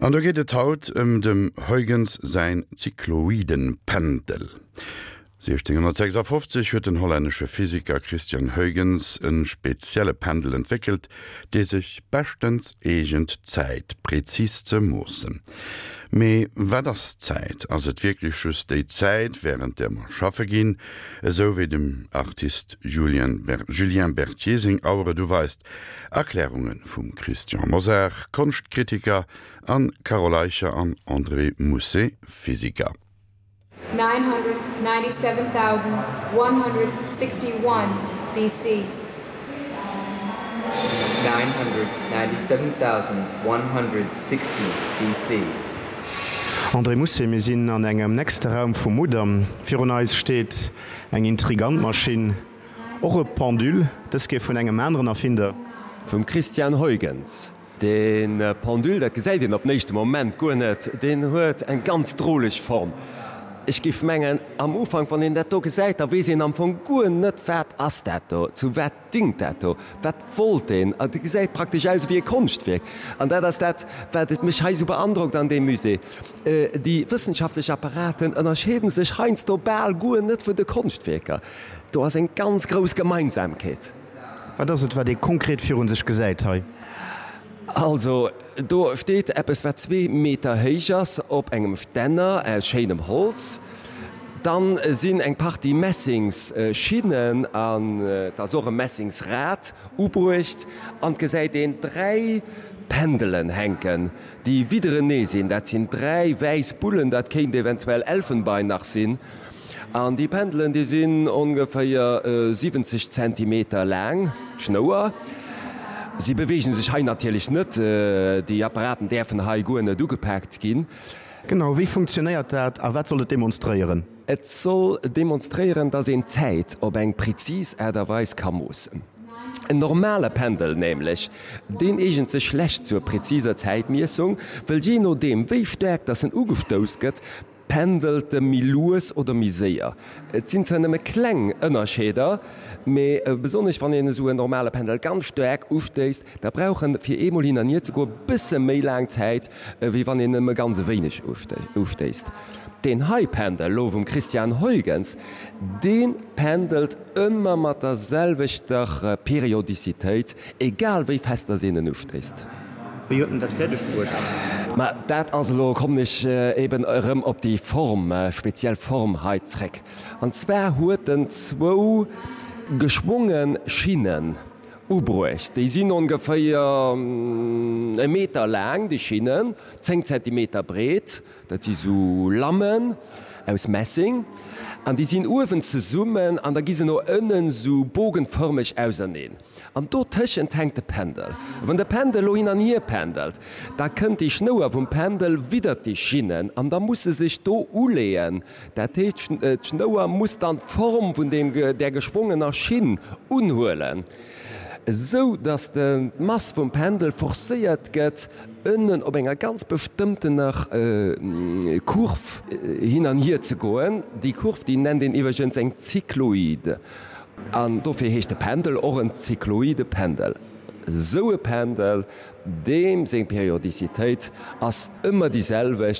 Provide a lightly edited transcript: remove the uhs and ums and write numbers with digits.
An do geet et haut ëm dem Huygens säin Zykloidenpendel. 1656 huet den hollännesche Physiker Christiaan Huygens e spezielle Pendel entwéckelt, dee sech beschtens eegent d'Zäit prezis ze moossen. Mee wat ass Zäit? Ass et wierklech just déi Zäit, wärend där mer schaffe ginn, esou wéi dem Artist Julien Berthier seng Auer et uweist? Erklärunge vum Christian Mosar, Konschtkritiker, an Carole Eicher an André Mousset, Physiker. 997,161 BC. 997,160 BC. André Mousset, Mir sinn an engem nächste Raum vum Mudam. Virun eis steet eng intrigant Maschinn. Och e Pendule, dës Kéier vun engem aneren Erfinder. Vum Christiaan Huygens. De Pendule, dat gesäit een op den éischte Moment guer net, deen huet eng ganz droleg Form. Ech géif mengen, am Ufank, wann een dat do gesäit, da weess een am Fong guer net, wat ass dat do, zu wat dingt dat do, wat wollt deen. Et gesäit praktesch aus ewéi e Konschtwierk. An dat ass dat, wat et mech hei esou beandrockt an deem Musée. Déi wëssenschaftlech Apparaten ënnerscheeden sech heiansdo bal guer net vun de Konschtwierker. Do ass eng ganz grouss Gemeinsamkeet. Wat ass et, wat ee konkret virun sech gesäit hei? Also, do steet eppes, wat zwee Meter héich ass, op engem Stänner aus schéinem Holz. Dann sinn eng Partie Messingsschinnen an et ass och e Messingsrad ubruecht. An et gesäit een dräi Pendelen hänken, déi widderenee sinn. Dat sinn dräi wäiss Bullen, dat kéint eventuell Elfenbein nach sinn. An déi Pendelen, déi sinn ongeféier 70 Zentimeter laang, d'Schnouer. Si beweegen sech hei natierlech net, déi Apparaten däerfen hei guer net ugepaakt ginn. Genau, wéi funktionéiert dat a wat soll et demonstréieren? Et soll demonstréieren, dass een d'Zäit op eng prezis Aart a Weis ka moossen. En normale Pendel nämlech, deen eegent sech schlecht zur preziser Zäitmiessung, wëll jee nodeem wéi staark dass en ugestouss gëtt, Pendelt e méi lues oder méi séier? Et sinn zwar nëmme kleng Ënnerscheeder, mee besonnesch wann een esou en normale Pendel ganz staark ustéisst, da brauch en fir eemol hin an hier ze goen e bësse méi laang Zäit, ewéi wann een nëmme ganz e wéineg ustéisst. Deen hei Pendel lo vum Christiaan Huygens, dee pendelt ëmmer mat der selwechter Periodizitéit, egal wéi fest dass een en ustéisst. Wéi huet en dat fäerdeg bruecht? Ma dat ass elo, kommen ech eben erëm op déi Form, speziell Form hei zréck. An zwar huet en zwou geschwonge Schinnen ubruecht. Déi sinn ongeféier e Meter laang, déi Schinnen, 10 Zentimeter breet. Dat si sou Lammen aus Messing an déi sinn uewen zesummen an da gi se no ënnen sou bogenfërmeg auserneen. An dotëschent hänkt de Pendel. Wann de Pendel elo hin an hier pendelt, da kënnt déi Schnouer vum Pendel widdert déi Schinnen an da muss se sech do uleeën. Dat heescht, d'Schnouer muss dann d'Form vun deem, där geschwongener Schinn unhuelen, esou datt d'Mass vum Pendel forcéiert gëtt, ënnen op enger ganz bestëmmtener Kurv hin an hier ze goen. Déi Kurv, déi nennt een iwwregens eng Zykloid. An dofir heescht de Pendel och en zykloide Pendel. Esou e Pendel, deem seng Periodicitéit ass ëmmer déi selwecht.